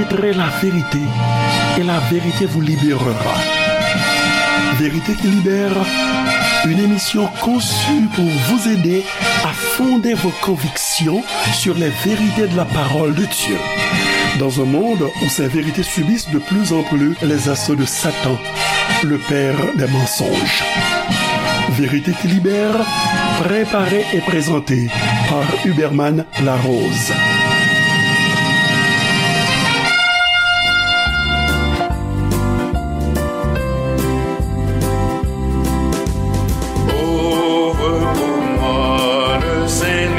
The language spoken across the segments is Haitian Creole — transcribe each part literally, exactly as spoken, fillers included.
Connaîtrez la vérité, et la vérité vous libérera. Vérité qui libère, une émission conçue pour vous aider à fonder vos convictions sur les vérités de la parole de Dieu. Dans un monde où ces vérités subissent de plus en plus les assauts de Satan, le père des mensonges. Vérité qui libère, préparée et présentée par Huberman Larose. Ouvre pour moi le Saint-Livre,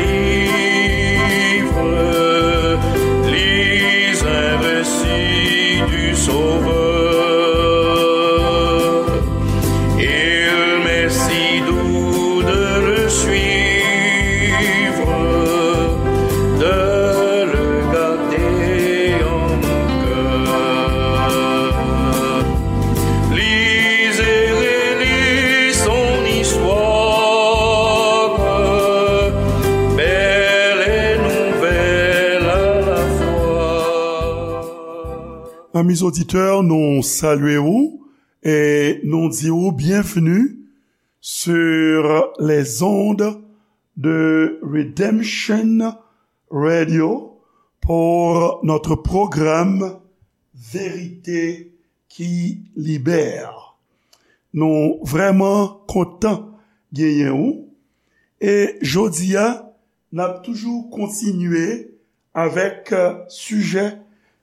lis un récit du Sauveur. Il m'est si doux de le suivre, de le garder en mon cœur. Lis et relis son histoire, belle et nouvelle à la fois. Amis auditeurs, nou salye w e nou di w byenvni sur les ondes de Redemption Radio pour notre programme Vérité qui Libère. Nou vrèman kontan genyen w. E jodi a, n ap toujou kontinye avèk, euh, sijè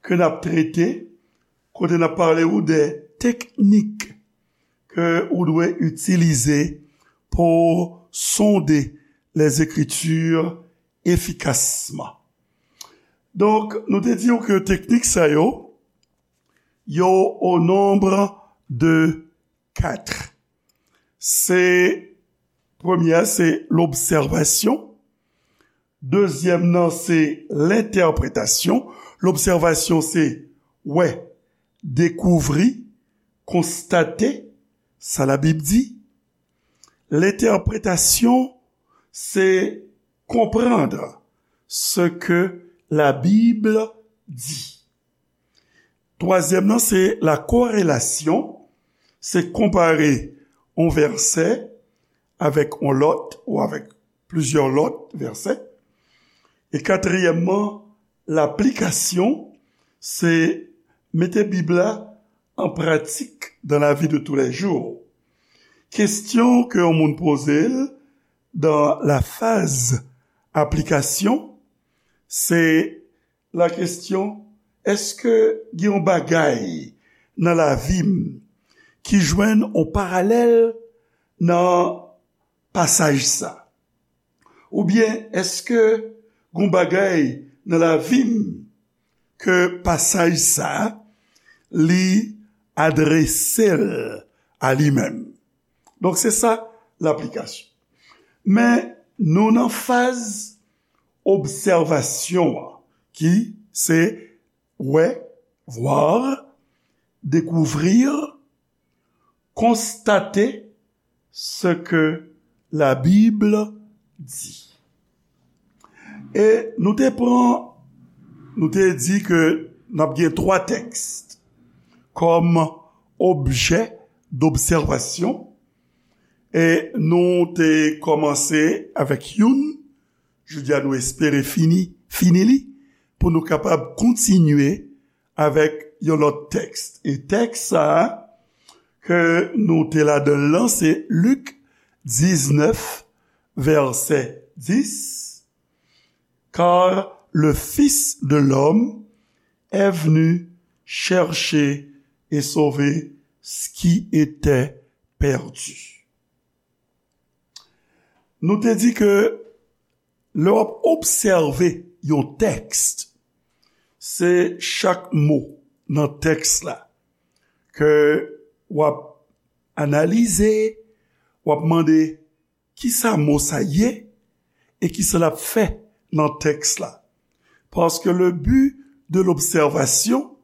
ke n ap trete, kote n ap pale w de teknik ke ou dwe itilize pou sonde les Écritures efficacement. Donk, nou te di w ke teknik sa yo, yo au nombre de quatre. Se, premye a, se l'observation. Dezyèm nan, se l'interprétation. L'observation, se wè, dekouvri, konstate sa Labib di. L'interprétation, se comprendre ce que la Bible dit. Twazyèm nan, se la corrélation, se konpare yon vèsè avèk yon lòt ou avèk plizyè lòt vèsè. E katriyèmman, l'application, se mete Bib la an pratik dans la vie de tous les jours. Kesyon ke yon moun poze l dans la phase application, se la kesyon, èske gen yon bagay nan lavi m ki jwenn yon paralèl nan pasaj sa? Oubyen èske gen yon bagay nan lavi m ke pasaj sa li adrese l a li menm? Donk, se sa laplikasyon. Men, nou nan faz obsèvasyon an, ki se wè, voir, découvrir, constater ce que la Bible dit. E nou te pran, nou te di ke n ap gen twa tèks kòm objè dobsèvasyon. E nou te kòmanse avèk youn, jodi a nou espere fini, fini li, pou nou kapab kontinye avèk yon lòt tèks. E tèks sa a ke nou te ladan l lan, se Lik diznèf, vèsè dis, Car le Fils de l'homme est venu chercher et sauver ce qui était perdu. Nou te di ke lè w ap obsève yon tèks, se chak mo nan tèks la ke w ap analize, w ap mande kisa mo sa ye e kisa l ap fè nan tèks la. Paske le but de l'observation,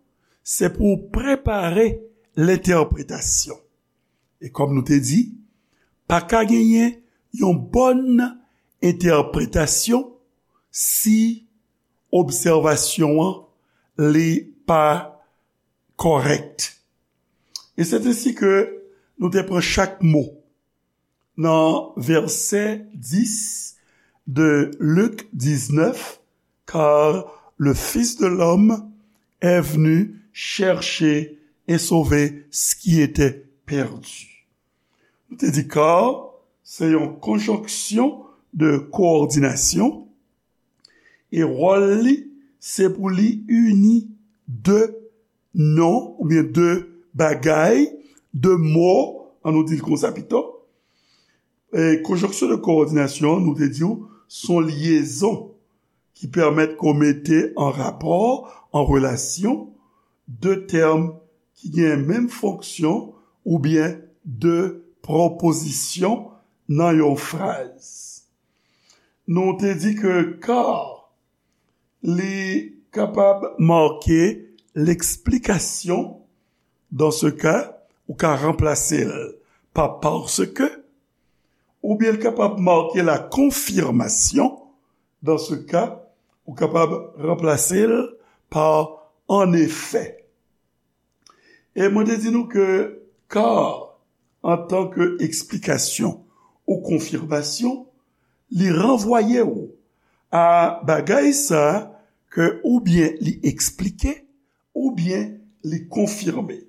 c'est pour préparer l'interprétation. E kòm nou te di, pa ka genyen yon bòn entèpretasyon si obsèvasyon an li pa kòrèk. E se ensi ke nou te pran chak mo nan vèsè dis de Lik diznèf, car le Fils de l'homme est venu chercher et sauver ce qui était perdu. Nou te di car se yon konjonksyon de kowòdinasyon e wòl li se pou li ini de non oubyen de bagay, de mo, an nou di l konsa pito. E konjonksyon de kowòdinasyon, nou te di w, se yon lyezon ki pèmèt ke w mete an rapò, an relasyon, de tèm ki gen menm fonksyon oubyen de pwopozisyon nan yon fraz. Nou te di ke car li kapab make leksplikasyon, dans ce cas, ou ka ranplase l pa parce que, oubyen l kapab make la confirmation, dans ce cas, ou kapab ranplase l pa en effet. E mwen te di nou ke car, antan ke eksplikasyon ou konfimasyon, li ranvwaye w a bagay sa ke oubyen li eksplike, oubyen li konfime.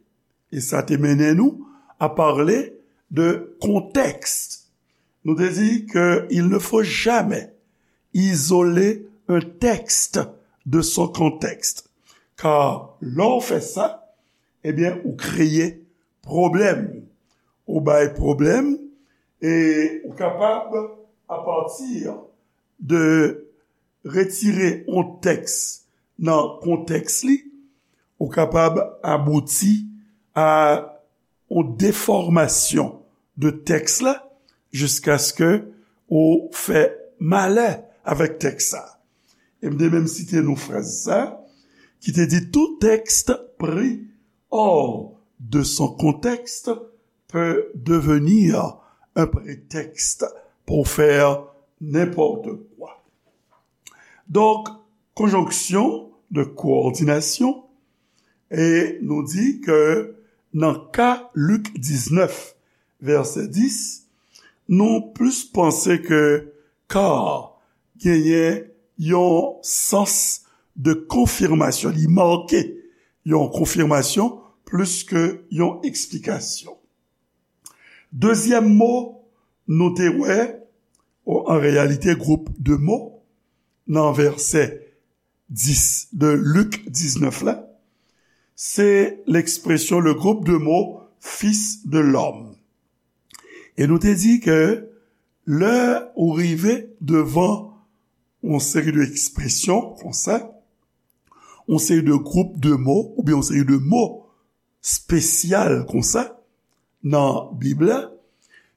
E sa te mennen nou a pale de kontèks. Nou te di ke il ne faut jamais isoler un texte de son contexte. Car lè w fè sa, ebyen, ou kreye pwoblèm. Ou bay pwoblèm e ou kapab, apati de retire yon tèks nan kontèks li, ou kapab abouti a yon defòmasyon de tèks la, jiskaske ou fè malè avèk tèks sa. E m te menm site nou fraz sa, ki te di, tout texte pris hors de son contexte peut devenir un prétexte pour faire n'importe quoi. Donk, konjonksyon de kowòdinasyon, e nou di ke nan ka Lik diznèf, vèsè dis, nou plis panse ke car genyen yon sans de konfimasyon, li make yon konfimasyon plis ke yon eksplikasyon. Dezyèm mo nou te wè, o, an reyalite, gwoup de mo, nan vèsè dis de Lik diznèf la, se lekspresyon, le groupe de mots fils de l'homme. E nou te di ke lè ou rive devan yon seri de ekspresyon konsa, yon seri de gwoup de mo, oubyen yon seri de mo espesyal konsa nan Bib la,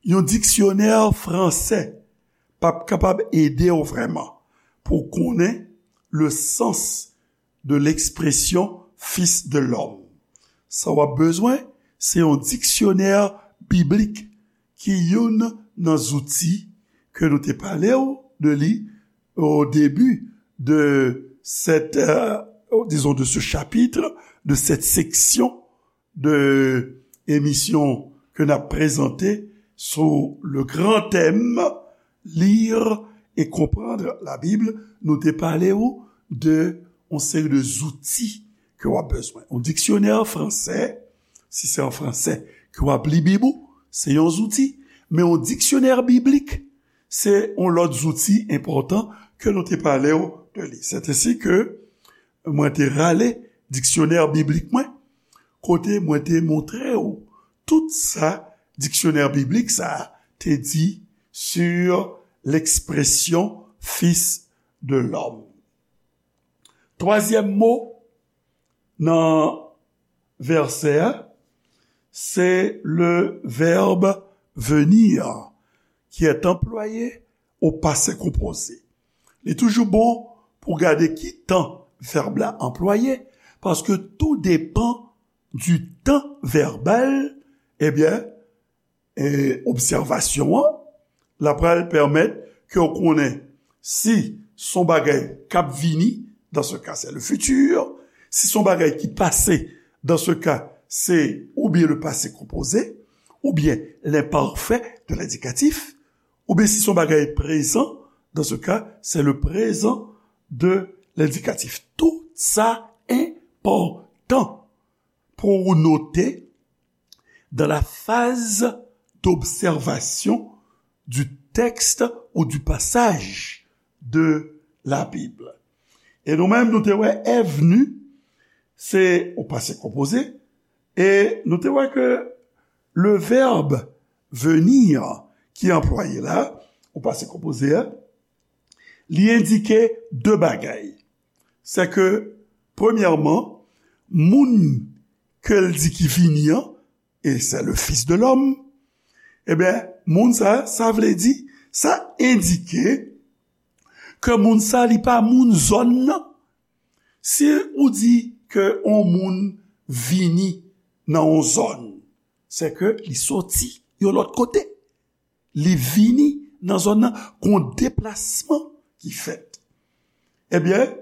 yon diksyonè fransè p ap kapab ede w vrèman pou w konnen le sens de l'expression fils de l'homme. Sa w ap bezwen, se yon diksyonè biblik ki youn nan zouti ke nou te pale w de li au début de cette, euh, disons, de ce chapitre, de cette section de emisyon ke n ap prezante sou le grand thème, lire et comprendre la Bible. Nou te pale w de yon seri de zouti ke w ap bezwen. Yon diksyonè fransè, si se an fransè ke w ap li Bib ou, se yon zouti. Men yon diksyonè biblik, se yon lòt zouti enpòtan ke nou te pale w de li. Se ensi ke mwen te rale diksyonè biblik mwen, kote mwen te montre w tout sa diksyonè biblik sa a te di sur l'expression fils de l'homme. Twazyèm mo nan vèsè a, se le verbe venir qui est employé au passé composé. Li toujou bon pou gade ki tan vèb la anplwaye, paske tou depan du temps verbal, ebyen, e, obsèvasyon an, l ap pral pèmèt ke w konnen si s on bagay k ap vini, dans ce cas, c'est le futur, Si se yon bagay ki pase, dans ce cas, c'est ou bien le passé composé, ou bien l'imparfait de l'indicatif, ou bien si se yon bagay prezan, dans ce cas, c'est le présent de l'indicatif. Tout sa enpòtan pou ou note dans la phase d'observation du texte ou du passage de la Bible. E nou menm, nou te wè è vni, se o pase konpoze, e nou te wè ke le verbe venir ki anplwaye la, o pase konpoze a, li endike de bagay. Se ke, premyèman, moun ke l di ki vini an, e se le Fils de l'homme, ebyen, moun sa, sa vle di, sa endike ke moun sa, li pa moun zòn nan. Si ou di ke yon moun vini nan yon zòn, se ke li soti yon lòt kote. Li vini nan zòn nan, gon deplasman ki fèt. Ebyen,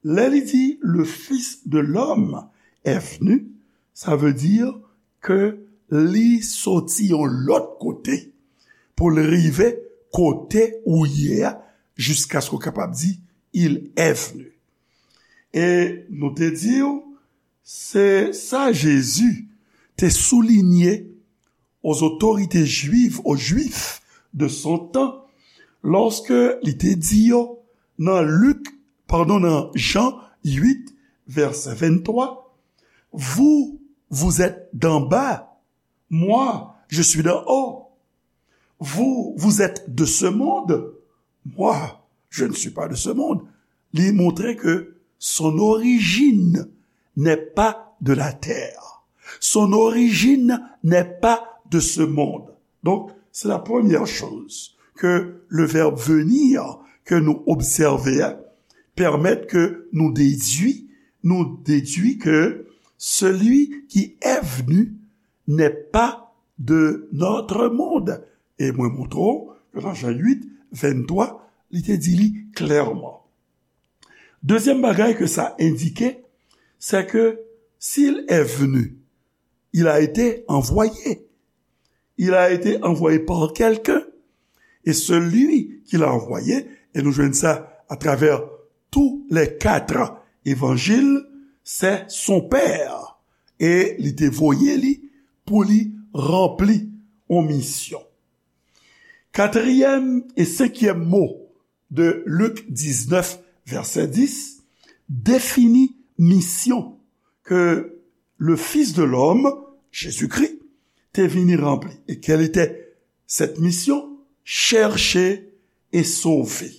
lè li di, le Fils de l'homme est venu, sa vle di ke li soti yon lòt kote pou l rive kote ou ye a, jiskaske w kapab di, il est venu. E nou te di w, se sa Jezi te soulinye aux autorités juives, aux Juifs de son temps, lorsque li te di yo nan Lik, padon, nan Jan uit, vèsè venntwa, vous, vous êtes d'en bas, moi, je suis d'en haut. Vous, vous êtes de ce monde, moi, je ne suis pas de ce monde. Li montre ke son origine n'est pas de la terre. Son origine n'est pas de ce monde. Donc, c'est la première chose que le verbe venir ke nou obsève a pèmèt ke nou dedui, nou dedui ke celui qui est venu n'est pas de notre monde. E mwen montre w ke nan Jan uit, venntwa, li te di li klèman. Dezyèm bagay ke sa endike, c'est que s'il est venu, il a été envoyé. Il a été envoyé par quelqu'un. Et celui qu'il a envoyé, e nou jwenn sa atravè tous les quatre évangiles, c'est son Père. E li te voye li pou li ranpli yon misyon. Katriyèm e senkyèm mo de Lik diznèf, vèsè dis, defini misyon ke le Fils de l'homme, Jésus-Christ, te vini ranpli. Et quelle était cette mission? Chercher et sauver.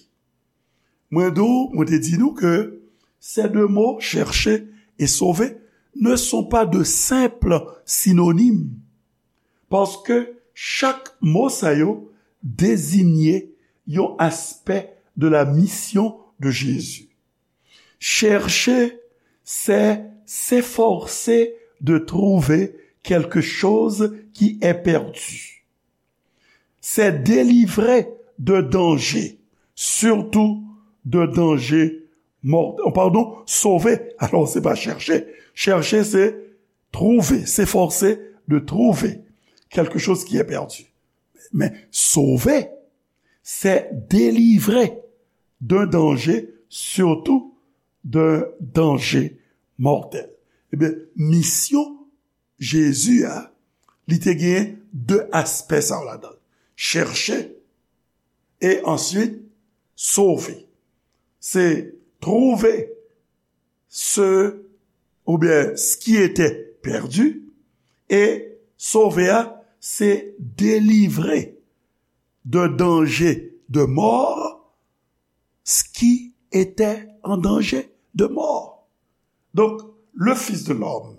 Mwen di w, mwen te di nou ke ces deux mots, chercher et sauver, ne sont pas de simples synonymes. Paske chak mo sa yo dezinye yon aspè de la mission de Jésus. Chercher, c'est s'efforcer de trouver quelque chose qui est perdu. C'est délivrer de danger, surtout de danger mortel. Oh, pardon, sauver. Alors, c'est pas chercher. Chercher, c'est trouver, s'efforcer de trouver quelque chose qui est perdu. Mais sauver, c'est délivrer d'un danger, surtout d'un danger mortel. Ebyen, misyon Jezi a, li te gen de aspè sa yo ladan l. Chèche e answit sove. Se trouve ce, oubyen ce qui était perdu, e sove a, se délivrer de danger de mort ce qui était en danger de mort. Donc, le Fils de l'homme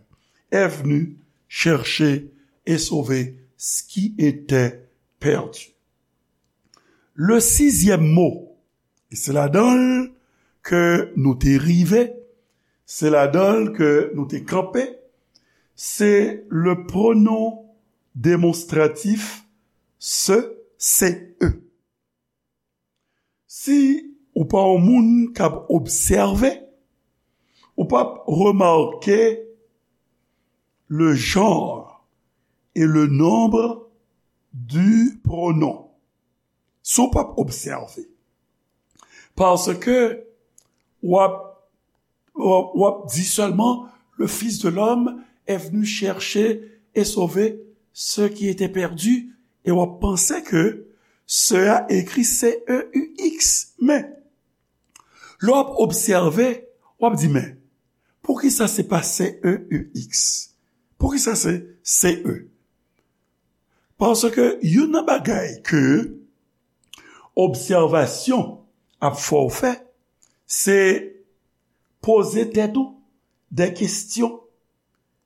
est venu chercher et sauver ce qui était perdu. Le sixième mot, e se ladan l ke nou te rive, se ladan l ke nou te kanpe, se le pronom démonstratif ce, ce, e. Si ou pa yon moun k ap obsève, Ou p ap remake le genre et le nombre du pronom. Si w p ap obsève. Paske w ap, w ap, w ap di sèlman, le Fils de l'homme est venu chercher et sauver ceux qui étaient perdus, e w ap panse ke ce a ekri C E U X. Men, lè w ap obsève, w ap di, men, poukisa se pa C E U X? Poukisa se C E? Paske youn nan bagay ke obsèvasyon ap fè w fè, se poze tèt ou de kesyon.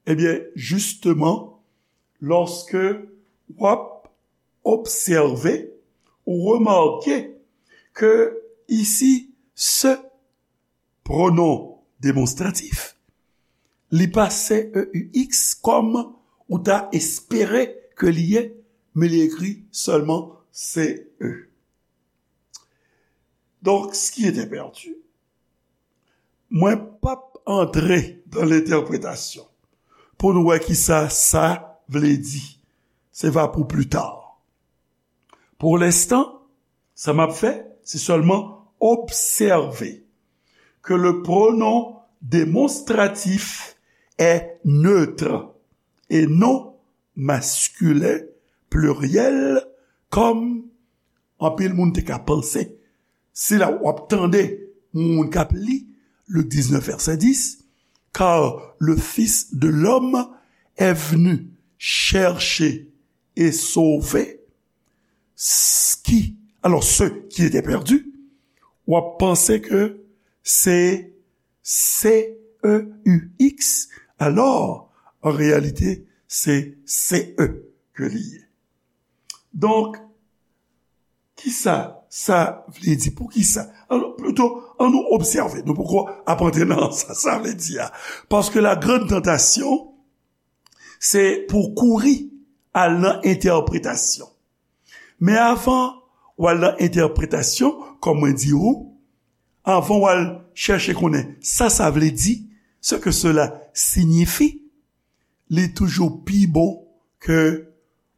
Ebyen, jisteman, lòske w ap obsève, ou remake ke isi, ce pronom demonstratif, li pa C E U X kòm ou ta espere ke li ye, men li ekri sèlman C E. Donc, ce qui était perdu, mwen p ap antre dans l'interprétation pou nou wè kisa sa vle di. Se va pou pli ta. Pour l'instant, sa m ap fè, se sèlman obsève ke le pronom démonstratif est neutre et non masculin pluriel, kòm anpil moun te ka panse. Se la w ap tande moun k ap li Lik diznèf, vèsè dis, car le Fils de l'homme est venu chercher et sauver ce qui, alors, ceux qui étaient perdus, w ap panse ke se C E U X, alò, an reyalite, se C E ke li ye. Donk, kisa sa vle di? Poukisa? Alò, plito, ann nou obsève. Nou poko ap antre nan sa sa vle di a. Paske la grande tentation, se pou kouri al nan entèpretasyon. Men avan w al nan entèpretasyon, kòm mwen di ou, avan w al chèche konnen sa sa vle di, ce que cela signifie, li toujou pi bon ke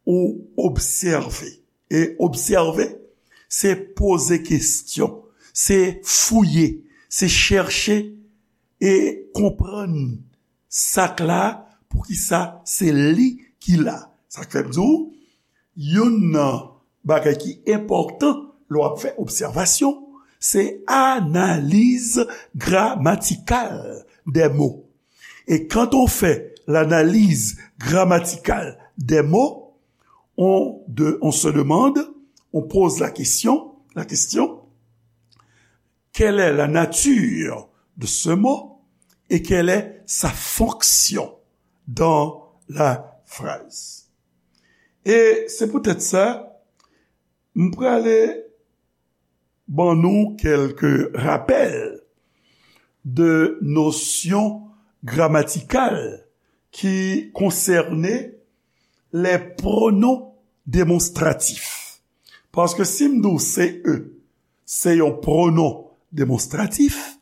ou obsève. E obsève, se poze kesyon, se fouye, se chèche e konprann sa k la, poukisa se li ki la. Sa k fè m di w, youn nan bagay ki enpòtan lè w ap fè obsèvasyon, se analiz gramatikal des mots. Et quand on fait l'analyse grammaticale des mots, on, de, on se demande, on pose la question, la question, quelle est la nature de ce mot et quelle est sa fonction dans la phrase? E se poutèt sa, m prale ban nou kèlke rapèl de nosyon gramatikal ki konsène les pronoms démonstratifs. Paske si m di w C E se yon pronom demonstratif,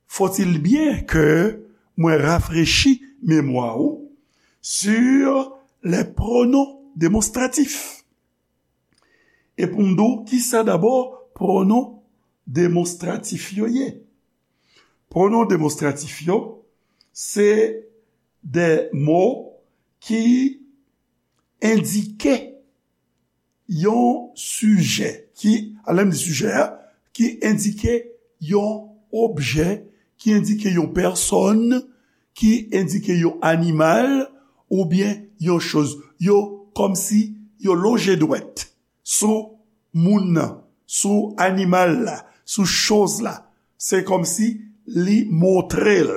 faut-il bien que mwen rafrechi memwa ou sur les pronoms démonstratifs. E pou m di w, kisa dabò pronom demonstratif yo ye? Pronom demonstratif yo, se de mo ki endike yon sijè, ki, a lè m di sijè a, ki endike yon objè, ki endike yon pèsòn, ki endike yon animal, oubyen yon choz. Yo kòmsi yo lonje dwèt sou moun nan, sou animal la, sou choz la. Se kòmsi li montre l.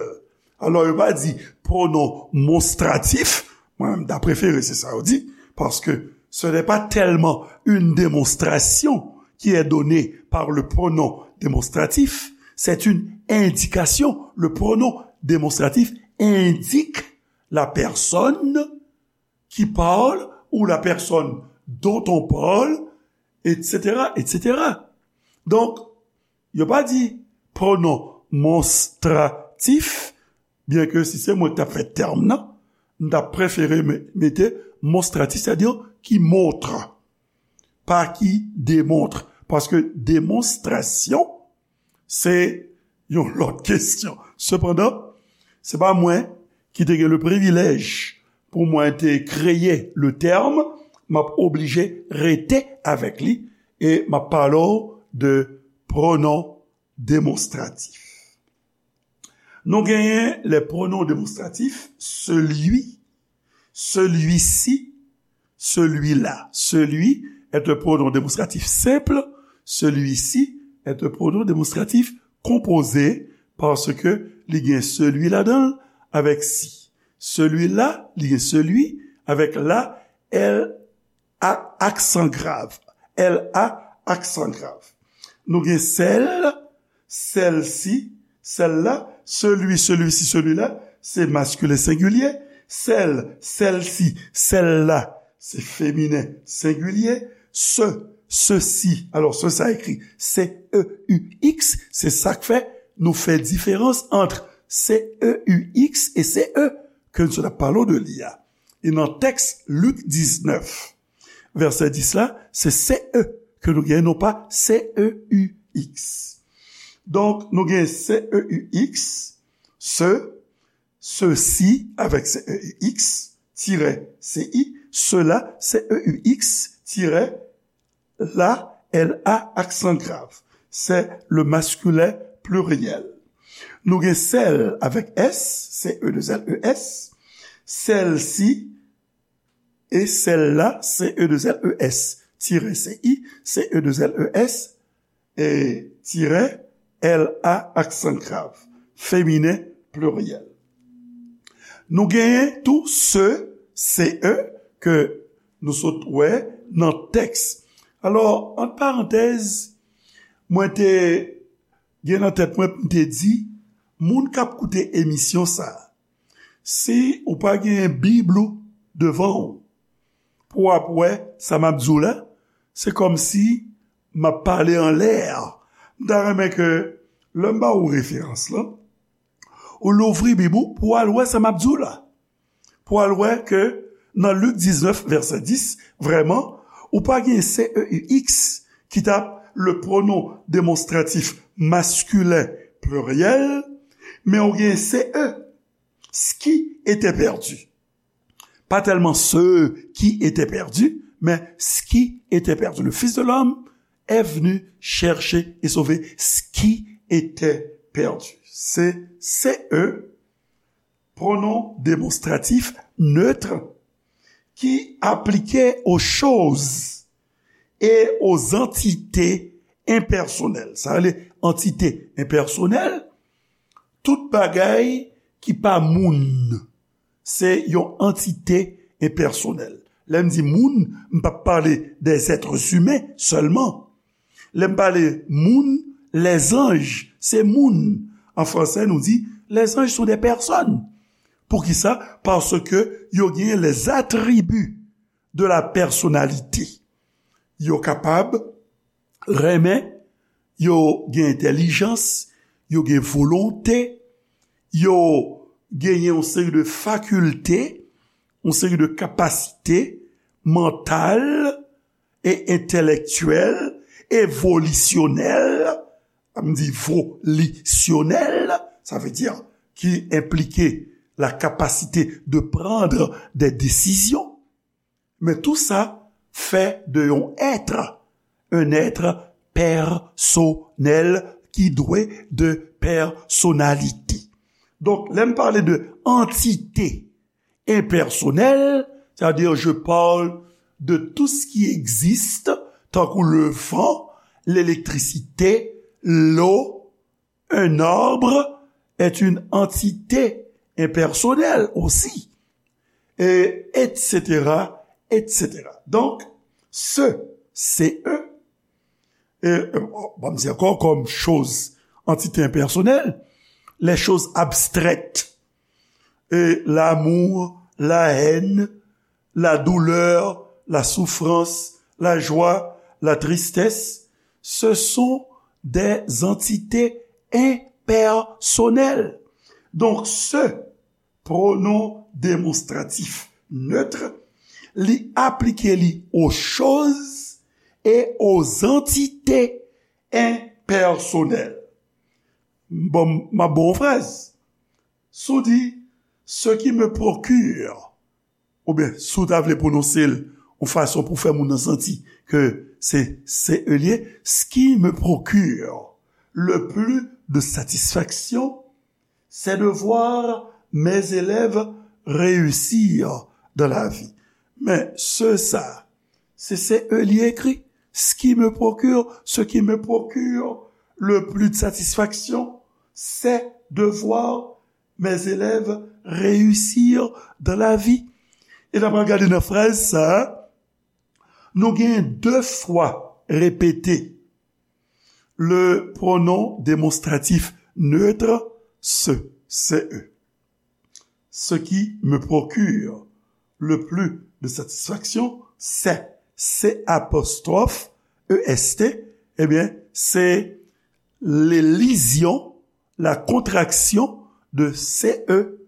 Alò, yo pa di pronom monstratif. Mwen menm, m ta prefere se sa yo di, paske ce n'est pas tellement une démonstration qui est donnée par le pronom démonstratif, c'est une indication. Le pronom démonstratif indique la personne qui parle ou la personne dont on parle, et cetera, et cetera. Donk, yo pa di pronom monstratif. Tif, byen ke si se mwen ki t ap fè tèm nan, m t ap prefere me- mete monstratif, sètadi ki montre, pa ki demontre. Paske demonstrasyon, se yon lòt kesyon. Sepandan, se pa mwen ki te gen le privilèj pou mwen te kreye le tèm, m ap oblije rete avèk li e m ap pale w de pronon demonstratif. Nou genyen les pronoms démonstratifs, celui, celui-ci, celui-là. Celui est un pronom démonstratif simple, celui-ci est un pronom démonstratif composé, paske li gen celui ladan l avèk si. Celui-là, li gen celui avèk la, L a aksan grav. L a aksan grav. Nou gen sèl, sèlsi, sèl-la, celui, celui-ci, celui-là, se maskilen sengilye. Sèl, sèlsi, sèl-la, se feminen sengilye. Se, sesi, alò, se sa ekri C E U X, se sa k fè nou fè diferans ant C E U X e C E ke nou sot ap pale de li a. E nan tèks Lik diznèf, vèsè dis la, se C E ke nou gen, non pa C E U X. Donk, nou gen C E U X, se, sesi avèk C E U X, tirè C I, sela, C E U X, tirè la, L A, aksan grav. Se le masculin pluriel. Nou gen sèl avèk S, C E deux L E S, sèlsi, e sèl-la, C E deux L E S, tirè C I, C E deux L E S, e tirè L A, aksan grav, feminen pliryèl. Nou genyen tou se, C E, ke nou sot wè nan tèks. Alò, ant parantèz, mwen te gen nan tèt mwen, m te di, moun k ap koute emisyon sa a, si ou pa gen Bib ou devan w, pou w ap wè sa m ap di w la, se kòmsi m ap pale anlè. M ta renmen ke lè m ba ou referans lan, ou louvri Bib ou pou w al wè sa m ap di w la. Pou w al wè ke nan Lik diznèf, vèsè dis, vrèman, ou pa gen C E U X ki t ap le pronom démonstratif masculin pluriel, men ou gen C E, ce qui était perdu. Pas tellement ceux qui étaient perdus, mais ce qui était perdu. Le Fils de l'homme est venu chercher et sauver ce qui était perdu. Se C E, pronom démonstratif neutre, ki aplike aux choses et aux entités impersonnelles. Sa rele antite enpèsonèl, tout bagay ki pa moun, se yon antite enpèsonèl. Lè m di moun, m p ap pale des êtres humains sèlman. Lè m pale moun, les anges, se moun. An fransè, nou di, les anges sont des personnes. Poukisa? Paske yo gen les attributs de la personnalité. Yo kapab renmen, yo gen entèlijans, yo gen volonte, yo genyen yon seri de fakilte, yon seri de kapasite mantal e entèlektyèl, evolisyonèl, m di volisyonèl, sa vle di ki enplike la capacité de prendre des décisions. Men tou sa fè de yon èt, un être personnel qui dwe de personnalité. Donk, lè m pale de antite enpèsonèl, c'est-à-dire je parle de tout ce qui existe, tankou le vent, l'électricité, l'eau, un arbre est une entité impersonnelle aussi, et et cetera, et cetera. Donk, se, C E, e, e, bon, m di ankò, kòm choz, antite enpèsonèl, les choses abstraites, e, l'amour, la haine, la douleur, la souffrance, la joie, la tristesse, ce sont des entités impersonnelles. Donk, ce, pronom démonstratif neutre, li aplike li aux choses et aux entités impersonnelles. Bon, m ap ba w yon fraz. Si w di, ce qui me procure, oubyen si w ta vle pwononse l yon fason pou fè moun nan santi ke se, se e l ye, ce qui me procure le plus de satisfaction, c'est de voir mes élèves réussir dans la vie. Men ce, sa, se, se e l ye ekri. Ce qui me procure, ce qui me procure le plus de satisfaction, c'est de voir mes élèves réussir dans la vie. E n ap gade nan fraz sa, nou gen de fwa repete le pronom démonstratif neutre, ce, ce e. Ce qui me procure le plus de satisfaction, c'est, c'est apostrophe E S T, ebyen, se l'elision, la contraction de C E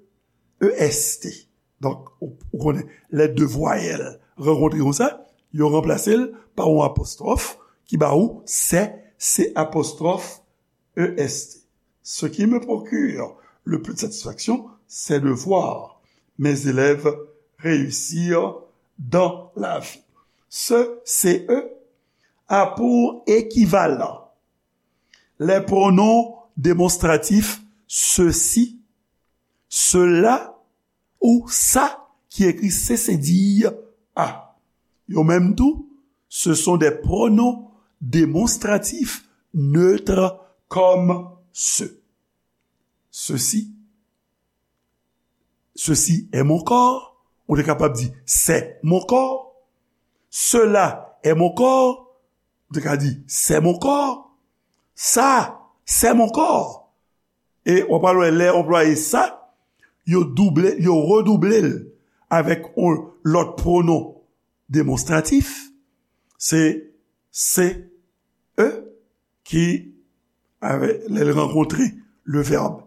E S T. Donk, ou, ou konnen, lè de vwayèl rankontre konsa, yo ranplase l pa yon apostwòf ki ba ou sè, se apostwòf E S T. Ce qui me procure le plus de satisfaction, c'est de voir mes élèves réussir dans la vie. Ce, ce a pour équivalent les pronoms démonstratifs ceci, cela ou sa ki ekri se, se di a. Yo menm tou, ce sont des pronoms démonstratifs neutres comme ce. Ceci, ceci est mon corps. Ou te kapab di c'est mon corps. Cela est mon corps. Ou te ka di c'est mon corps. Sa, c'est mon corps. E w ap wè lè yo anplwaye sa, yo double, yo redouble l avèk yon lòt pwonon demonstratif. Se, se e ki, avè, lè l rankontre le verbe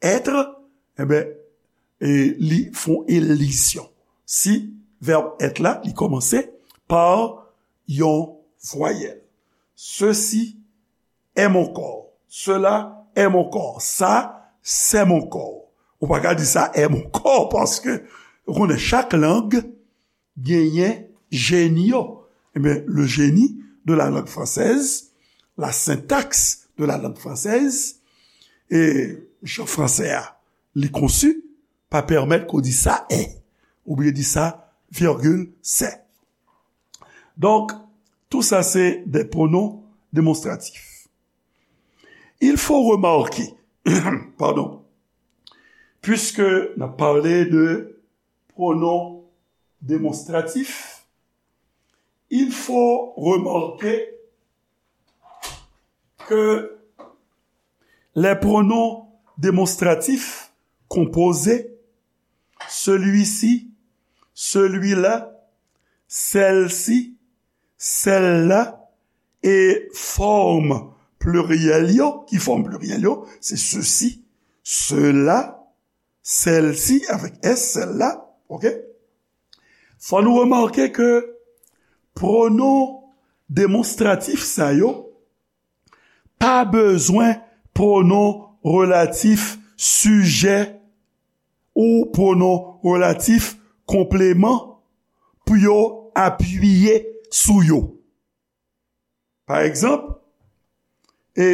être, enben, e li fè yon elizyon. Si verbe être la, li kòmanse pa yon vwayèl. Ceci est mon corps. Cela est mon corps. Ça, c'est mon corps. Ou pa ka di sa est mon corps paske ou konnen chak lang genyen jeni yo. Ebyen, le génie de la langue française, la syntaxe de la langue française, e jan fransè a li konsi, pa pèmèt ke w di sa est, oubyen di sa virgule c'est. Donk, tou sa se de pwonon demonstratif. Il faut remarquer, pardon, puisque n ap pale de pwonon demonstratif, il faut remarquer que les pronoms démonstratifs composés, celui-ci, celui-là, celle-ci, celle-là, e fòm pliryèl yo, ki fòm pliryèl yo, se ceci, cela, celle-ci, avèk S, celle-là, oke? Fò nou remake ke pwonon demonstratif sa yo pa bezwen pwonon relatif sijè ou pwonon relatif konpleman pou yo apiye sou yo. Pa egzanp, e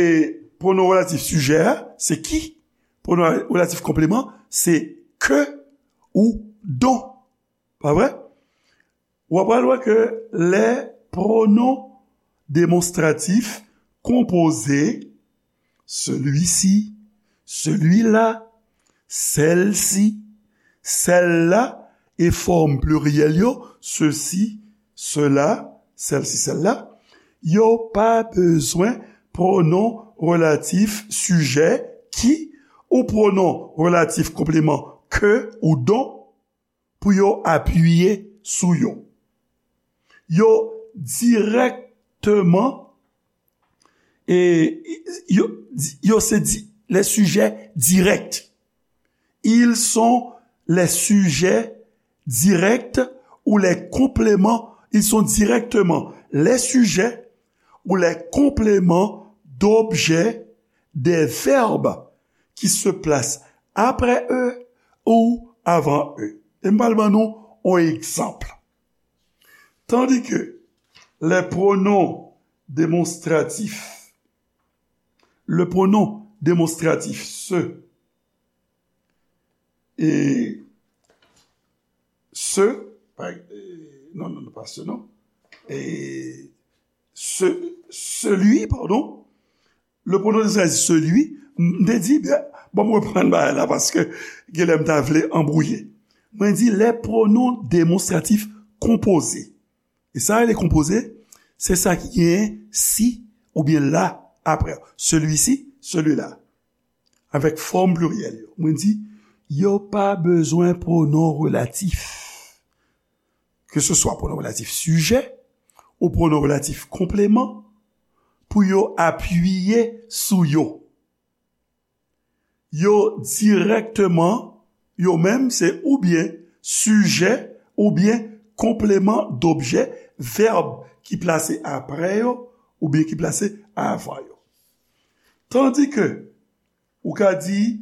pwonon relatif sijè a, se qui? Pwonon relatif konpleman, se que ou dont. Pa vre? W ap pral wè ke lè pwonon demonstratif konpoze, celui-ci, celui-là, celle-ci, celle-là, e fòm pliryèl yo, ceci, cela, celle-ci, celle-là, yo pa bezwen pwonon relatif sijè qui ou pwonon relatif konpleman que ou dont pou yo apiye sou yo. Yo dirèkteman, e, yo, yo se di, les sujets directs. Ils sont les sujets directs ou les compléments, ils sont directement les sujets ou les compléments d'objets des verbes qui se placent après eux ou avant eux. E m pral ban nou yon egzanp. Tandis que les pronoms démonstratifs, le pronom démonstratif se et ce, pa- euh, non, non, non, pas ce, non. Et ce, celui, pardon, le pronom démonstratif celui, m te di, byen, bon, m reprann bagay la paske genlè m ta vle anbwouye. Mwen di les pronoms démonstratifs composés. E sa rele konpoze, se sa ki genyen si oubyen la apre. Celui-ci, celui-là. Avèk fòm pliryèl yo. Mwen di, yo pa bezwen pwonon relatif. Ke se swa pwonon relatif sijè ou pwonon relatif konpleman pou yo apiye sou yo. Yo dirèkteman, yo menm se oubyen sijè oubyen konpleman dobjè, vèb ki plase apre yo oubyen ki plase avan yo. Tandi ke ou ka di,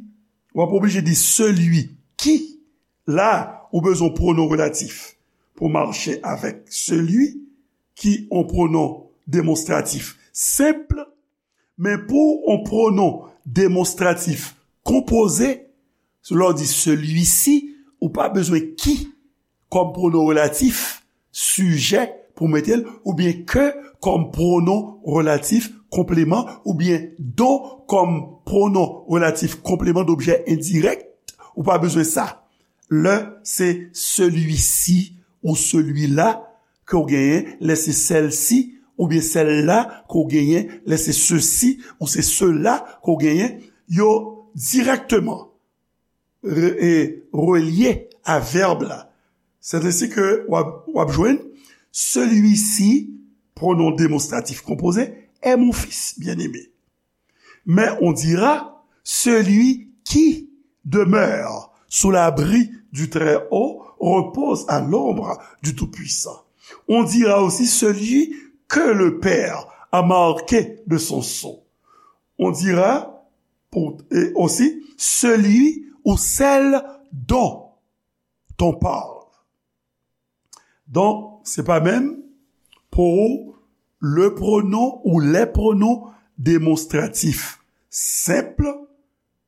w ap oblije di celui qui. La, ou bezwen pwonon relatif pou mache avèk celui, ki yon pwonon demonstratif senp, men pou yon pwonon demonstratif konpoze, lè w di celui-ci, ou pa bezwen qui kòm pwonon relatif sijè pou mete l, oubyen que kòm pwonon relatif konpleman, oubyen dont kòm pwonon relatif konpleman dobjè endirèk, ou pa bezwen sa. Lè se celui-ci ou celui-là ke w genyen, lè se celle-ci oubyen celle-là ke w genyen, lè se ceux-ci ou se ceux-là ke w genyen, yo dirèkteman re- e relye a vèb la. Sètadi ke w ap, w ap jwenn celui-ci, pronom démonstratif composé, est mon fils bien-aimé. Mais on dira celui qui demeure sous l'abri du Très-Haut repose à l'ombre du Tout-Puissant. On dira aussi celui que le Père a marqué de son sceau. On dira pour, et aussi celui ou celle dont on parle. Donk, se pa menm pou le pronom ou les pronoms démonstratifs senp,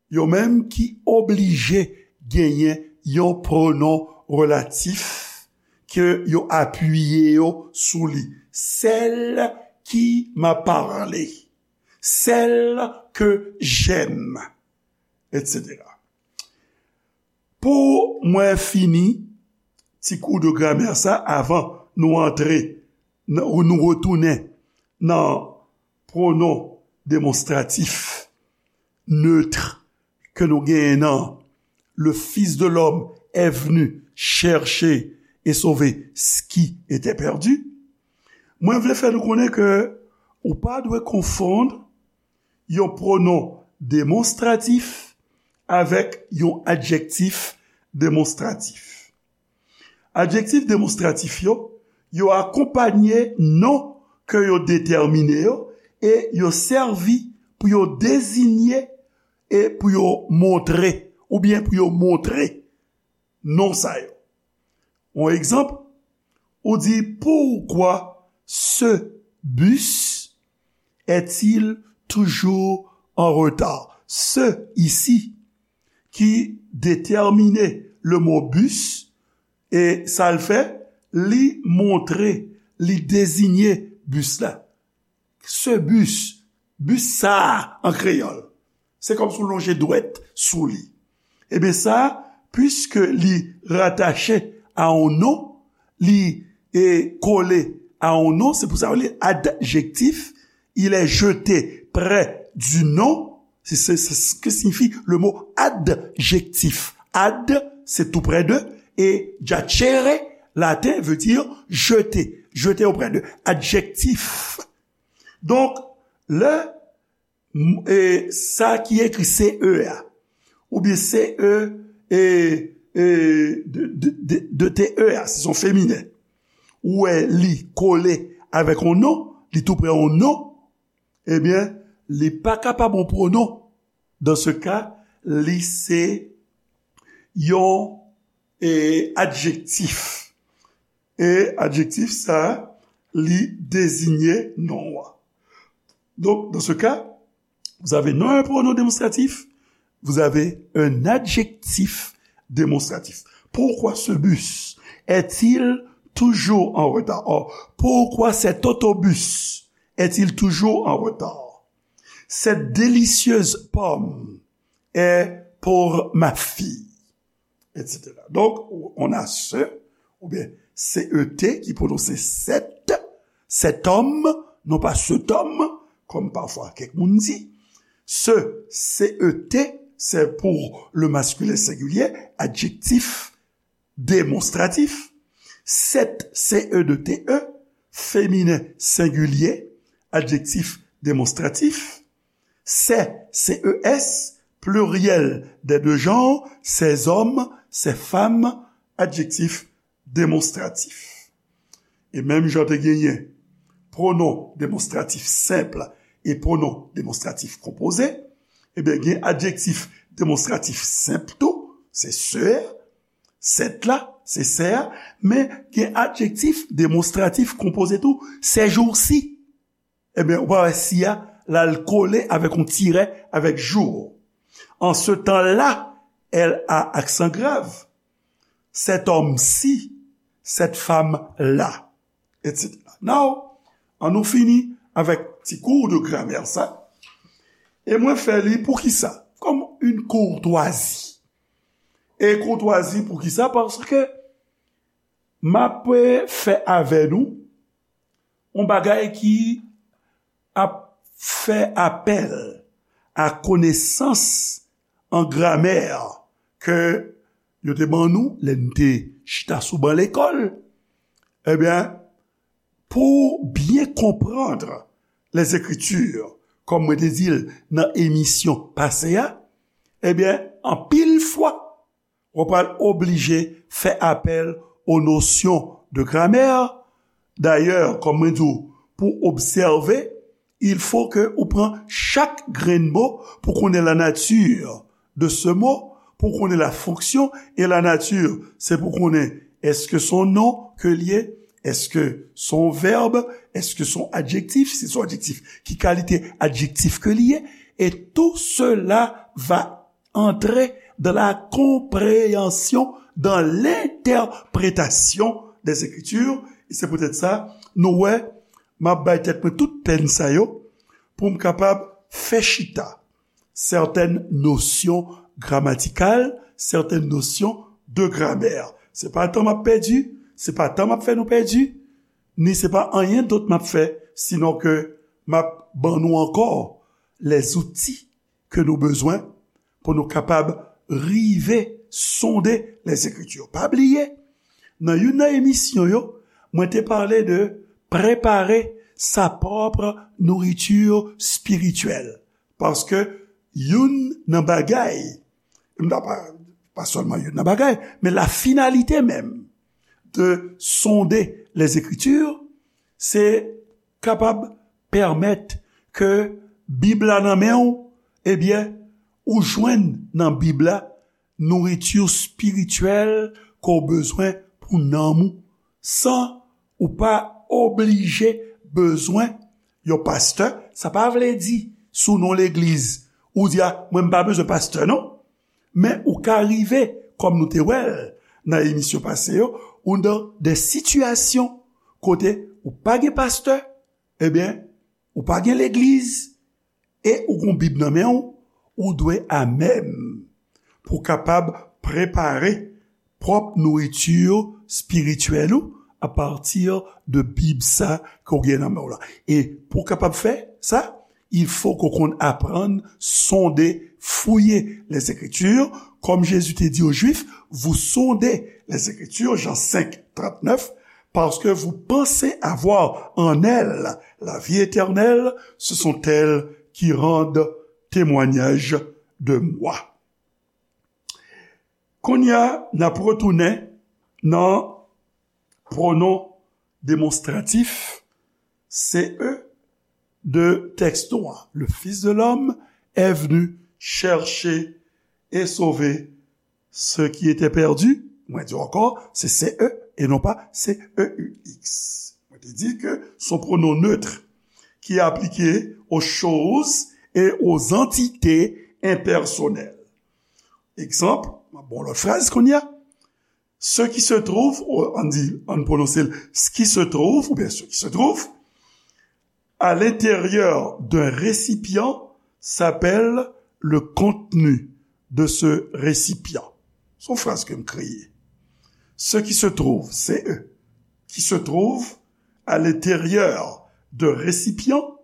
yo menm ki oblije genyen yon pronom relatif ke yo apiye yo sou li. Celle qui m'a parlé, celle que j'aime, et cetera. Pou mwen fini ti kou de gramè sa avan nou antre nan, ou nou retounen nan pronom demonstratif neutre ke nou genyen nan le Fils de l'homme est venu chercher et sauver ce qui était perdu. Mwen vle fè nou konnen ke ou pa dwe konfonn yon pronom demonstratif avèk yon adjektif demonstratif. Adjektif demonstratif yo, yo akonpanye non ke yo detèmine yo e yo sèvi pou yo deziye e pou yo montre, oubyen pou yo montre non sa yo. Yon egzanp, ou di, pourquoi ce bus est-il toujours en retard? Ce ici, ki detèmine le mo bus, e sa l fè, li montre, li deziye bis la. Ce bus, bis sa a an kreyòl, se kòmsi w lonje dwèt sou li. Ebyen sa, piske li ratache a yon non, li e kole a yon non, se pou sa yo rele adjektif, il est jeté près du nom, c'est c'est- c'est ce que signifie le mot adjectif. Ad, c'est tout près de, et jacere, laten, veut dire jeter, jeter auprès de. Adjektif. Donk, lè m- e, sa ki ekri C E a, oubyen C E e, e, de, de, de, de T E a, si se yon feminen, ou wè li kole avèk yon non, li tou prè yon non, ebyen, li pa kapab yon pwonon. Dan se ka, li se yon, e, adjektif. E adjektif sa, li deziye non an. Donk, dan se ka, vous avez non un pronom démonstratif, vous avez un adjectif démonstratif. Pourquoi ce bus est-il toujours en retard? Or, pourquoi cet autobus est-il toujours en retard? Cette délicieuse pomme est pour ma fille, et cetera. Donk, on a ce, oubyen C E T ki pwononse cet, cet homme, non pa cet homme, kòm pafwa kèk moun di. Ce, C E T, c'est pour le masculin singulier, adjectif démonstratif. Cette, C E deux T E, féminin singulier, adjectif démonstratif. Ces, C E S, pluriel des deux genres, ces hommes, ces femmes, adjectif démonstratif. E menm jan te genyen pwonon demonstratif senp e pwonon demonstratif konpoze, ebyen, gen adjektif demonstratif senp tou, se sè, sèt la, se sè a, men gen adjektif demonstratif konpoze tou, ces jours-ci. Ebyen, ou pa wè si a, l al kole avèk yon tirè avèk jour. En ce temps-là, L A aksan grav, cet homme-ci, cette femme-là, et cetera. Now, ann nou fini avèk ti kou de gramè sa. E mwen fè li pou ki sa? Kòm yon koutwazi. E koutwazi pou ki sa? Paske m ap fè avè nou yon bagay ki ap fè apèl a konesans an gramè ke yo te ban nou lè n te chita sou ban lekòl. Ebyen, pou byen konprann les Écritures, kòm mwen te di l nan emisyon pase a, ebyen, anpil fwa, w ap pral oblije fè apèl o nosyon de gramè. Dayè, kòm mwen di w, pou obsève, il faut que ou pran chak grenn mo pou konnen la nature de ce mot, pou konnen la fonction et la nature. Se pou konnen èske se yon non ke l ye, èske se yon vèb, èske se yon adjektif, si se yon adjektif, ki kalite adjektif ke l ye, et tout cela va entrer dans la compréhension, dans l'interprétation des Écritures. E se poutèt sa, nou wè, m ap bay tèt mwen tout pèn sa yo pou m kapab fè chita sètèn nosyon gramatikal, sètèn nosyon de gramè. Se pa tan m ap pèdi, se pa tan m ap fè nou pèdi, ni se pa anyen dòt m ap fè, sinon ke m ap ban nou ankò lèzouti ke nou bezwen pou nou kapab rive sonde les Écritures. Pa bliye, nan youn nan emisyon yo, mwen te pale de prepare sa pwòp nouriti espirityèl. Paske youn nan bagay, m ta pa, pa sèlman youn nan bagay, men la finalité même de sonder les Écritures, se kapab pèmèt ke Bib la nan men w, ebyen, ou jwenn nan Bib la nouriti espirityèl ke w bezwen pou nanm ou, san ou pa oblije bezwen yon pastè. Sa pa vle di, si w nan yon legliz, ou di, a, mwen, m pa bezwen pastè, non. Men ou ka rive, kòm nou te wè l nan emisyon pase yo, ou nan de sitiyasyon kote ou pa gen pastè, ebyen, ou pa gen legliz, e ou gon Bib nan men w, ou dwe amèm pou w kapab prepare pwòp nouriti espirityèl ou apati de Bib sa ke w gen nan men w la. E pou w kapab fè sa, il faut ke w konn aprann sonde, fouye les Écritures, kòm Jezi te di aux Juifs, vous sondez les Écritures, Jean cinq, trente-neuf, parce que vous pensez avoir en elles la vie éternelle, ce sont elles qui rendent témoignage de moi. Kounye a, n ap retounen nan pwonon demonstratif, se e, de tèks nou an. Le Fils de l'homme est venu chercher et sauver ce qui était perdu. Mwen di w ankò, se se e e non pa se e u x. Mwen te di ke se yon pwonon neutre ki aplike aux choses et aux entités impersonnelles. Egzanp, m ap ba w lòt fraz kounye a. Ce qui se trouve, ou, ann di, ann pwononse l, ce qui se trouve, oubyen ce qui se trouve, à l'intérieur d'un récipient s'appelle le contenu de ce récipient. Se yon fraz ke m kreye. Ce qui se trouve, se e, qui se trouve à l'intérieur d'un récipient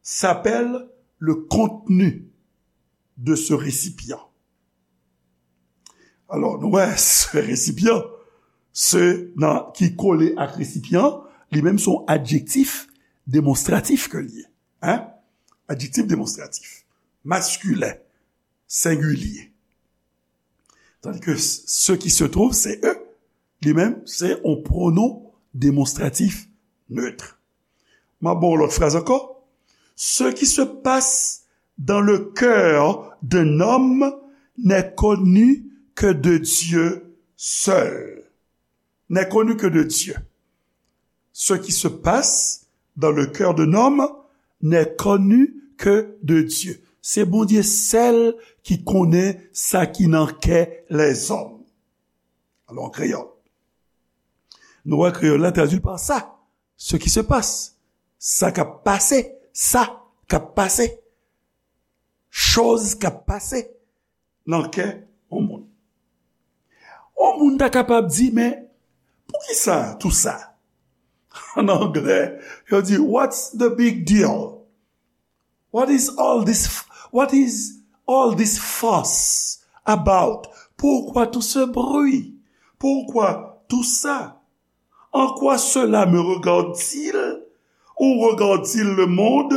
s'appelle le contenu de ce récipient. Alò, nou wè, se resipyan, se nan, ki kole ak resipyan, li menm se yon adjektif demonstratif ke l ye. Hein? Adjektif demonstratif. Maskilen, sengilye. Tandis que ce qui se trouve, se e, li menm, se yon pwonon demonstratif neutre. M ap ba w lòt fraz ankò. Ce qui se passe dans le cœur d'un homme n'est connu que de Dieu seul. N'est connu que de Dieu. Ce qui se passe dans le cœur d'un homme n'est connu que de Dieu. Se Bondye sèl ki konnen sa ki nan kè lèzòm. Alò, an kreyòl, nou wè kreyòl la tradui pa sa. Ce qui se passe. Sa k ap pase. Sa k ap pase. Choz k ap pase nan kè yon moun. Yon moun ta kapab di, men, poukisa tou sa? An anglè, yo di, what's the big deal? What is all this, what is all this fuss about? Pourquoi tout ce bruit? Pourquoi tout ça? En quoi cela me regarde-t-il ou regarde-t-il le monde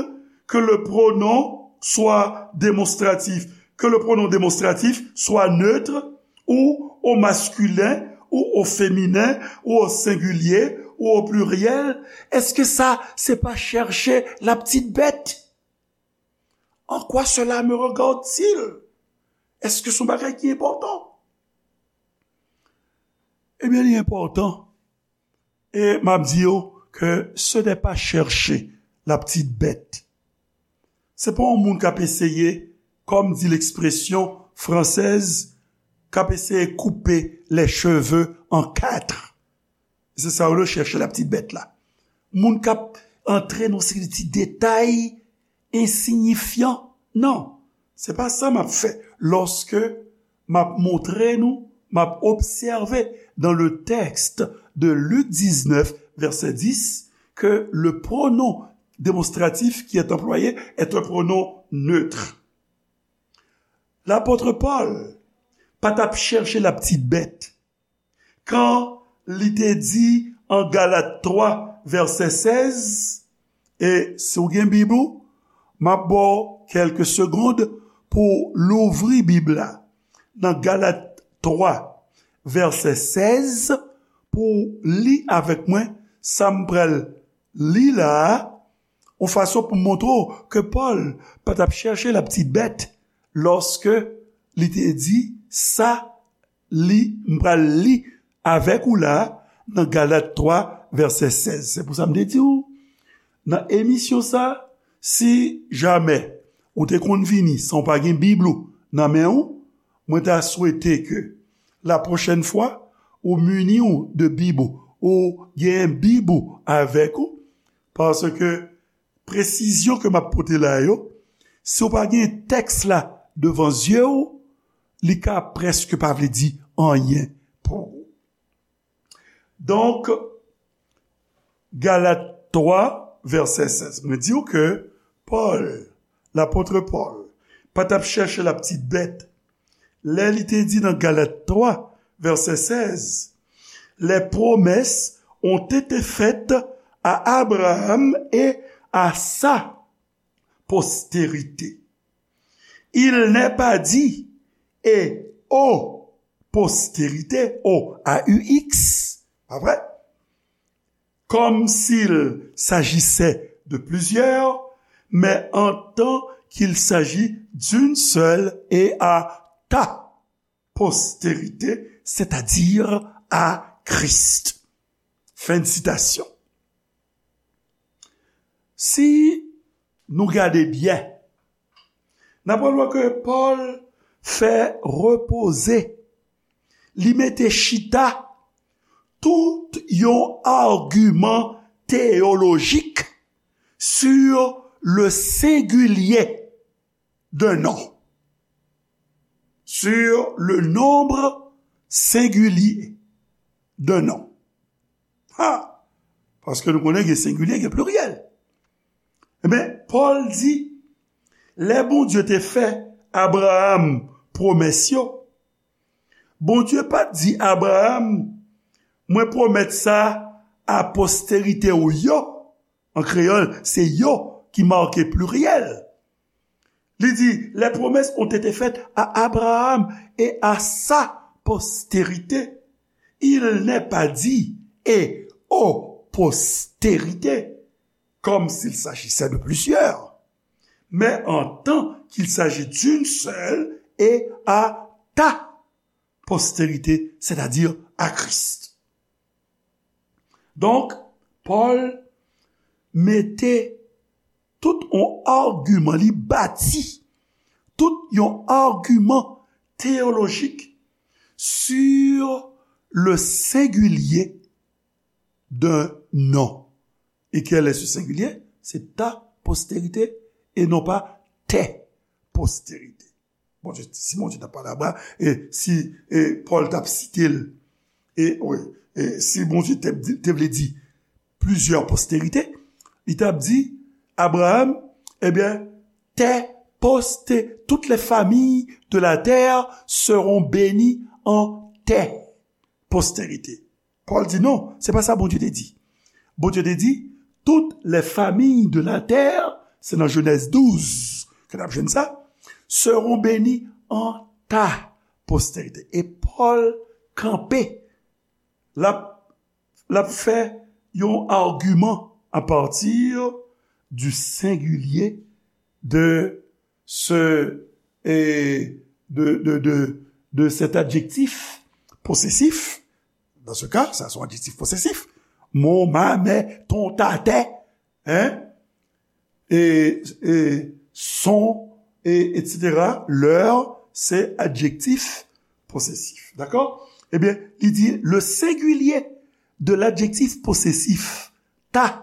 que le pronom soit démonstratif, que le pronom démonstratif soit neutre ou au masculin ou au féminin ou au singulier ou au pluriel? Èske sa se pa chèche laptitbèt? En quoi cela me regarde-t-il? Èske se yon bagay ki enpòtan? Ebyen, li enpòtan. E m ap di yo ke ce n'est pas chercher la petite bête. Se pa yon moun k ap eseye, comme dit l'expression française, k ap eseye koupe les cheveux en quatre. Se sa yo rele chèche la petite bête la. Moun k ap antre nan seri ti detay ensiyifyan. Non, se pa sa m ap fè. Lòske m ap montre nou, m ap obsève dans le texte de Luc dix-neuf, verset dix, que le pronom démonstratif qui est employé est un pronom neutre. Lapòt Pòl pa t ap chèche laptitbèt. Kan li te di an Galat twa, vèsè sèz, e si w gen Bib ou, m ap ba w kèlke segond pou w louvri Bib la. Nan Galat twa, vèsè sèz, pou w li avèk mwen sa m pral li la a, yon fason pou m montre w ke Pòl pa t ap chèche laptitbèt lòske li te di sa li, m pral li avèk ou la nan Galat twa, vèsè sèz. Se pou sa m te di w, nan emisyon sa, si jamè ou te konn vini san w pa gen Bib ou nan men w, mwen ta swete ke la pwochèn fwa, ou mini w de Bib ou, ou genyen Bib ou avèk ou, paske presizyon ke m ap pote la yo, si w pa gen tèks la devan zye w, li ka prèske pa vle di anyen pou ou. Donk, Galat twa, vèsè sèz, mwen di w ke Pòl, lapòt Pòl, pa t ap chèche laptitbèt lè li te di nan Galat twa, vèsè sèz, les promesses ont été faites à Abraham et à sa postérité. Il n'est pas dit et aux postérité, O A U X, pa vre? Comme s'il s'agissait de plusieurs, mais en tant qu'il s'agit d'une seule et à ta postérité, c'est-à-dire à Christ. Fin de citation. Si nou gade byen, n ap wè ke Pòl fè repoze, li mete chita tout yon agiman teyolojik sur le singulier d'un nom. Sur le nombre singulier d'un nom. Ha! Paske nou konnen gen sengilye, gen pliryèl. Ebyen, Pòl di, lè Bondye te fè Abraram pwomès yo, Bondye pa t di Abraram, mwen pwomèt sa a posterite w yo. An kreyòl, se yo ki make pliryèl. Li di, les promesses ont été faites à Abraham et à sa postérité. Il n'est pas dit et aux postérités, comme s'il s'agissait de plusieurs, mais en tant qu'il s'agit d'une seule et à ta postérité, c'est-à-dire à Christ. Donk, Pòl mete tout yon agiman, li bati tout yon agiman teyolojik sur le singulier d'un nom. Et quel est ce singulier? C'est ta postérité et non pas tes postérités. Bondye, si Bondye t ap pale Abraram, e si e Pòl t ap site l, e, wi, e si Bondye te, te vle di plizyè posterite, li t ap di, Abraram, ebyen, tes posté, toutes les familles de la terre seront bénies en tes postérités. Pòl di non, se pa sa Bondye te di. Bondye te di, toutes les familles de la terre, se nan Jenèz douz ke n ap jwenn sa, seront bénies en ta postérité. E Pòl kanpe, l ap, l ap fè yon agiman à partir du singulier de ce, et de, de, de, de cet adjectif possessif. Dans ce cas, ça, c'est un adjectif possessif. Mon, ma, mes, ton, ta, tes, hein? Et, et son, et, et cetera. Leur, c'est adjectif possessif. D'accord? Eh bien, il dit le singulier de l'adjectif possessif, ta,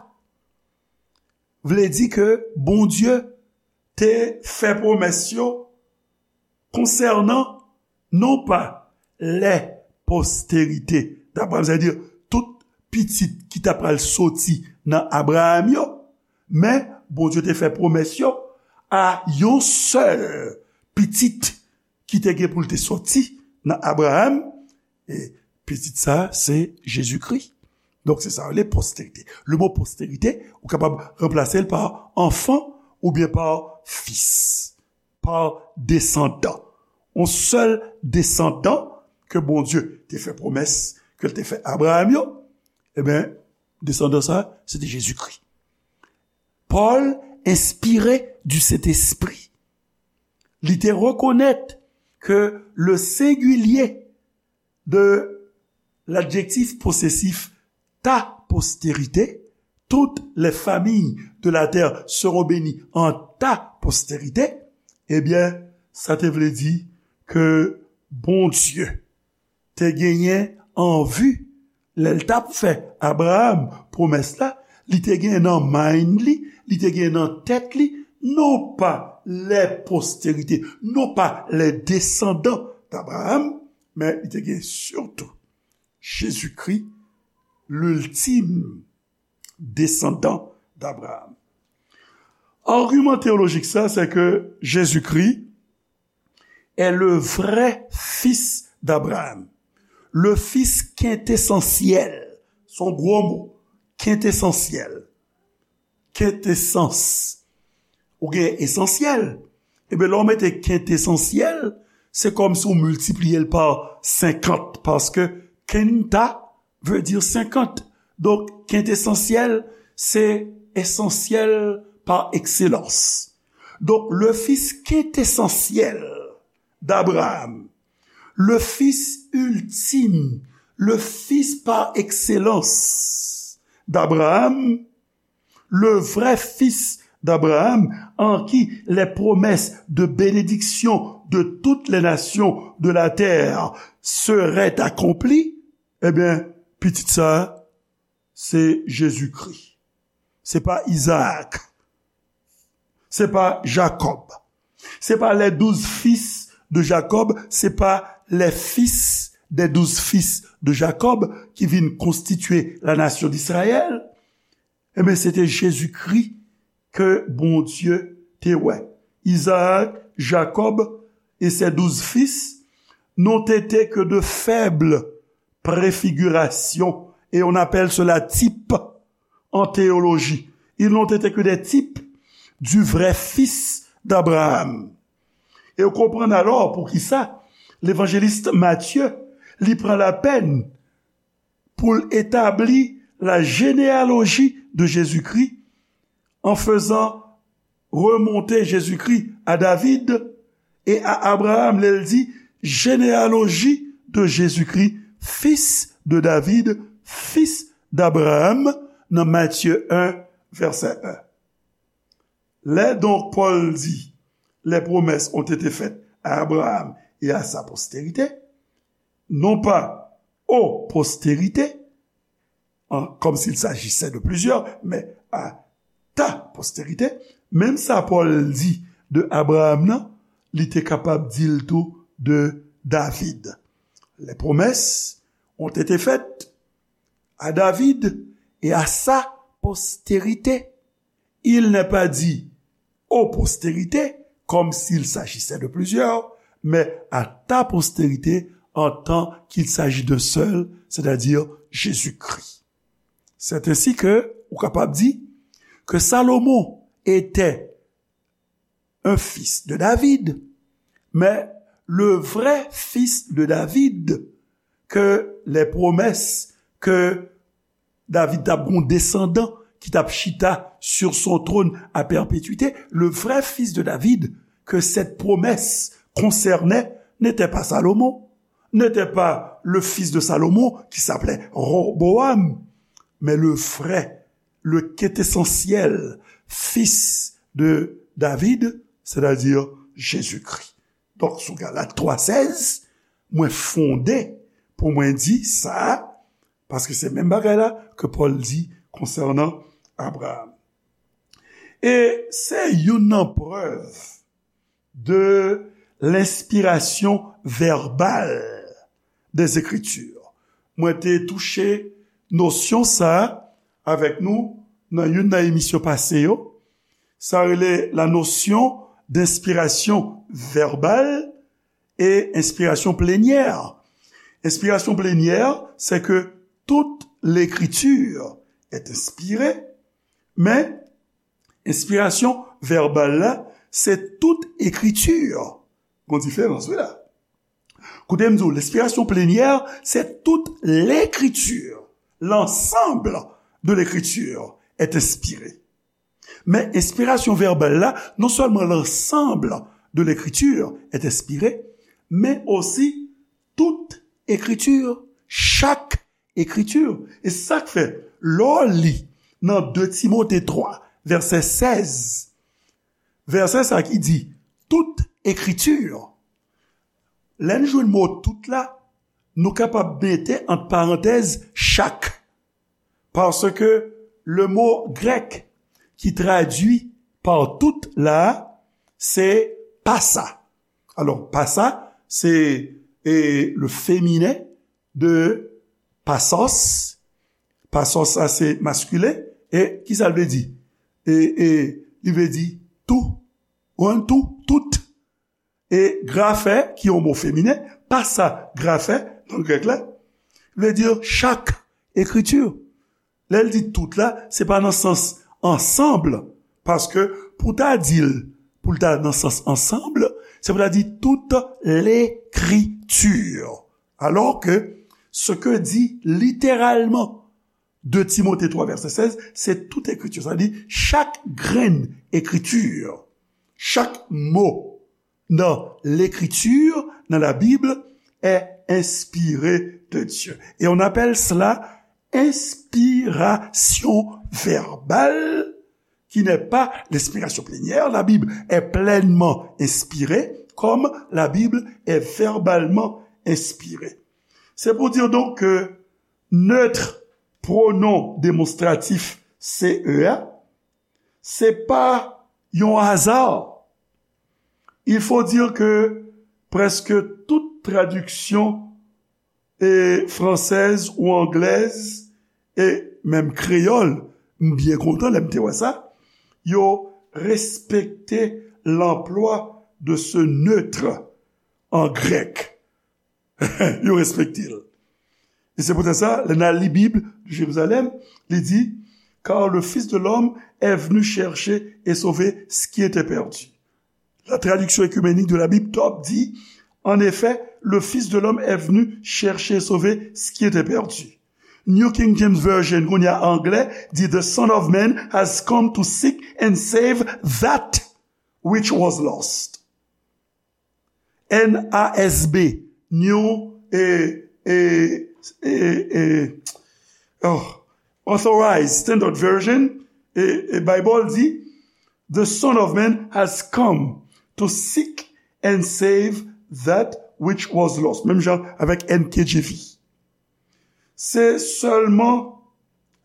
vle di ke Bondye te fè pwomès yo konsènan non pa les postérités d'Abraham, sètadi tout pitit ki ta pral soti nan Abraram yo, men Bondye te fè pwomès yo a yon sèl pitit ki te gen pou l te soti nan Abraram, e pitit sa a se Jezikri. Donk, se sa yo rele posterite. Le mo posterite, ou kapab ranplase l pa anfan oubyen pa fis, pa desandan. Yon sèl desandan ke Bondye te fè pwomès, ke l te fè Abraram yo, ebyen, desandan sa a, se te Jezikri. Pòl, enspire du Sentespri, li te rekonèt ke le sengilye de ladjektif posesif ta postérité, toutes les familles de la terre seront bénies en ta postérité, ebyen, sa te vle di ke Bondye te genyen an vi lè l t ap fè Abraram pwomès la, li te genyen nan mind li, li te genyen nan tèt li, non pa les postérités, non pa les descendants d'Abraham, men li te genyen sitou Jezikri, l'ultime descendant d'Abraham. Agiman teyolojik sa, se ke Jezikri est le vrai fils d'Abraham, le fils quintessentiel. Se yon gwo mo, quintessentiel. Kentesans. Ou gen esansyèl. Ebyen, lè w mete kentesans, se kòmsi w miltipliye l pa senkant, paske quinta vle di senkant. Donk, kentesansyèl, se esansyèl pa ekselans. Donk, le fils quintessentiel d'Abraham, le fils ultime, le fils par excellence d'Abraham, le vrai fils d'Abraham, en qui les promesses de bénédiction de toutes les nations de la terre seraient accomplies, ebyen, pitit sa a, se Jezikri. Se pa Izaak. Se pa Jakòb. Se pa les douze fils de Jacob, se pa les fils des douze fils de Jacob ki vin konstitye la nasyon d'Israël. Ebyen, se te Jezikri ke Bondye te wè. Izaak, Jakòb e ses douze fils n'ont été que de faibles préfigurations, et on appelle cela type en théologie. Ils n'ont été que des types du vrai fils d'Abraham. E w konprann alò poukisa levanjelis Matye, li pran lapèn pou l etabli la généalogie de Jésus-Christ en faisant remonter Jésus-Christ à David et à Abraham. Lè l di, généalogie de Jésus-Christ, fils de David, fils d'Abraham, nan Matye en, vèsè en. Lè donk Pòl di, les promesses ont été faites à Abraham et à sa postérité, non pas aux postérités, en, comme s'il s'agissait de plusieurs, mais à ta postérité, menm sa Pòl di de Abraham nan, li te kapab di l tou de David. Les promesses ont été faites à David et à sa postérité. Il n'est pas dit aux postérités, comme s'il s'agissait de plusieurs, mais à ta postérité, en tant qu'il s'agit d'un seul, c'est-à-dire Jésus-Christ. C'est ainsi que, ou kapab di, que Salomon était un fils de David, mais le vrai fils de David, que les promesses que David t ap gen yon desandan ki t ap chita sur son trône à perpétuité, le vrai fils de David que cette promesse concernait n'était pas Salomon, n'était pas le fils de Salomon qui s'appelait Roboam, mais le vrai, le quintessentiel fils de David, c'est-à-dire Jésus-Christ. Donk, sou Galat twa sèz, mwen fonde pou mwen di sa, paske se menm bagay la ke Pòl di konsènan Abraham. E se youn nan prèv de lenspirasyon vèbal des Écritures. Mwen te touche nosyon sa avèk nou nan youn nan emisyon pase yo. Sa rele la notion d'inspiration verbale et inspiration plénière. Inspiration plénière, c'est que toute l'écriture est inspirée, mais inspiration verbale la, c'est toute écriture. Gon diferans, wi la. Koute m di w, l'inspiration plénière, c'est toute l'écriture. L'ensemble de l'écriture est inspiré. Men enspirasyon vèbal la, non sèlman l'ensemble de l'écriture est inspiré, men osi tout écriture, chak écriture. E sa k fè, lè w li nan de Timote twa, vèsè sèz, vèsè sa ki di, tout écriture, lè n jwenn mo tout la, nou kapab mete ant parantèz chak. Paske le mo grèk ki tradui pa tout la, se pasa. Alò, pasa, se, e, le féminin de pasos. Pasos, sa se maskilen. E ki sa l vle di? E, e, li vle di tou. Ou konprann? Tou, tout. E graphe, ki yon mo feminen, pasa graphe nan grèk la, vle di chak ekriti. Lè l di tout la, se pa nan sans ansanm, paske pou ta di l, pou l ta nan sans ansanm, C'est-à-dire toute l'écriture. Alors que ce que dit littéralement deux Timothée trois, verset seize, c'est toute écriture. Sa di, chak grenn ekriti, chak mo nan lekriti, nan Labib, est inspiré de Dieu. Et on appelle cela inspiration verbale, qui n'est pas l'inspiration plénière. La Bible est pleinement inspirée, comme la Bible est verbalement inspirée. C'est pour dire donc que neutre, pronom démonstratif C E A, se pa yon aza. Il faut dire que presque toute traduction, eh, française ou anglaise, e menm kreyòl, m byen kontan lè m te wè sa, yo respekte l'emploi de ce neutre en grec. Yo respekte l. E se poutèt sa, lè n al li Bib de Jérusalem, li di, car le Fils de l'homme est venu chercher et sauver ce qui était perdu. La traduction écuménique de la Bible, Dobb, dit, en effet, le Fils de l'homme est venu chercher et sauver ce qui était perdu. New King James Version, kounye a anglè, di, the Son of Man has come to seek and save that which was lost. N A S B, New, eh, eh, eh, eh, oh, Authorized Standard Version, eh, eh, Bible di, the Son of Man has come to seek and save that which was lost. Menm jan avèk N K J V. Se sèlman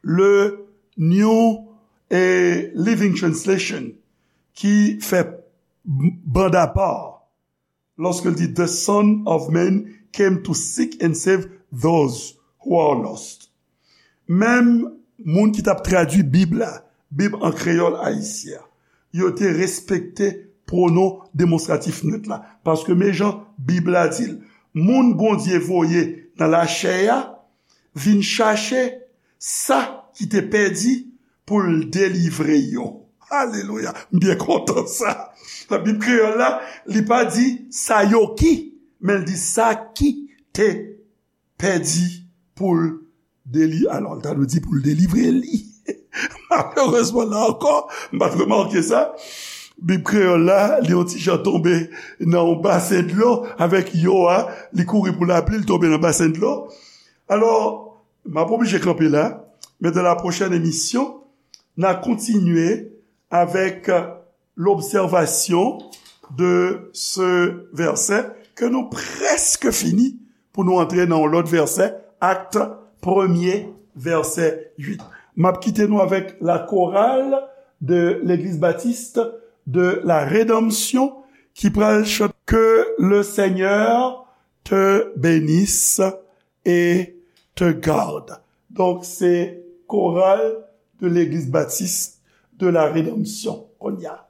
le New, eh, Living Translation ki fè banda pa lòske l di, the Son of Man came to seek and save those who are lost. Menm moun ki t ap tradui Bib la, Bib an kreyòl ayisyen an, yo te respekte pwonon demonstratif nèt la. Paske men jan Bib la di l, moun Bondye voye nan lachè a vin chache sa ki te pèdi pou l delivre yo. Alelouya! M byen kontan sa. Nan Bib kreyòl la, li pa di sa yo ki, men l di sa ki te pèdi pou l deli-, alò, l ta dwe di pou l delivre li. Malerezman, la ankò, m pa t remake sa. Bib kreyòl la, li yon ti jan tonbe nan yon basen dlo avèk yo a, li kouri pou lapli, li tonbe nan basen dlo. Alò, m ap oblije kanpe la, men dans la prochaine émission, n a kontinye avèk l'observation de ce verset ke nou prèske fini pou nou antre nan yon lòt vèsè, Acte premier, verset huit. M ap kite nou avèk la chorale de l'Église Baptiste de la Rédemption ki pral chante Que le Seigneur te bénisse et te garde. Donk, se koral de l'Église Baptiste de la Rédemption. Kounye a.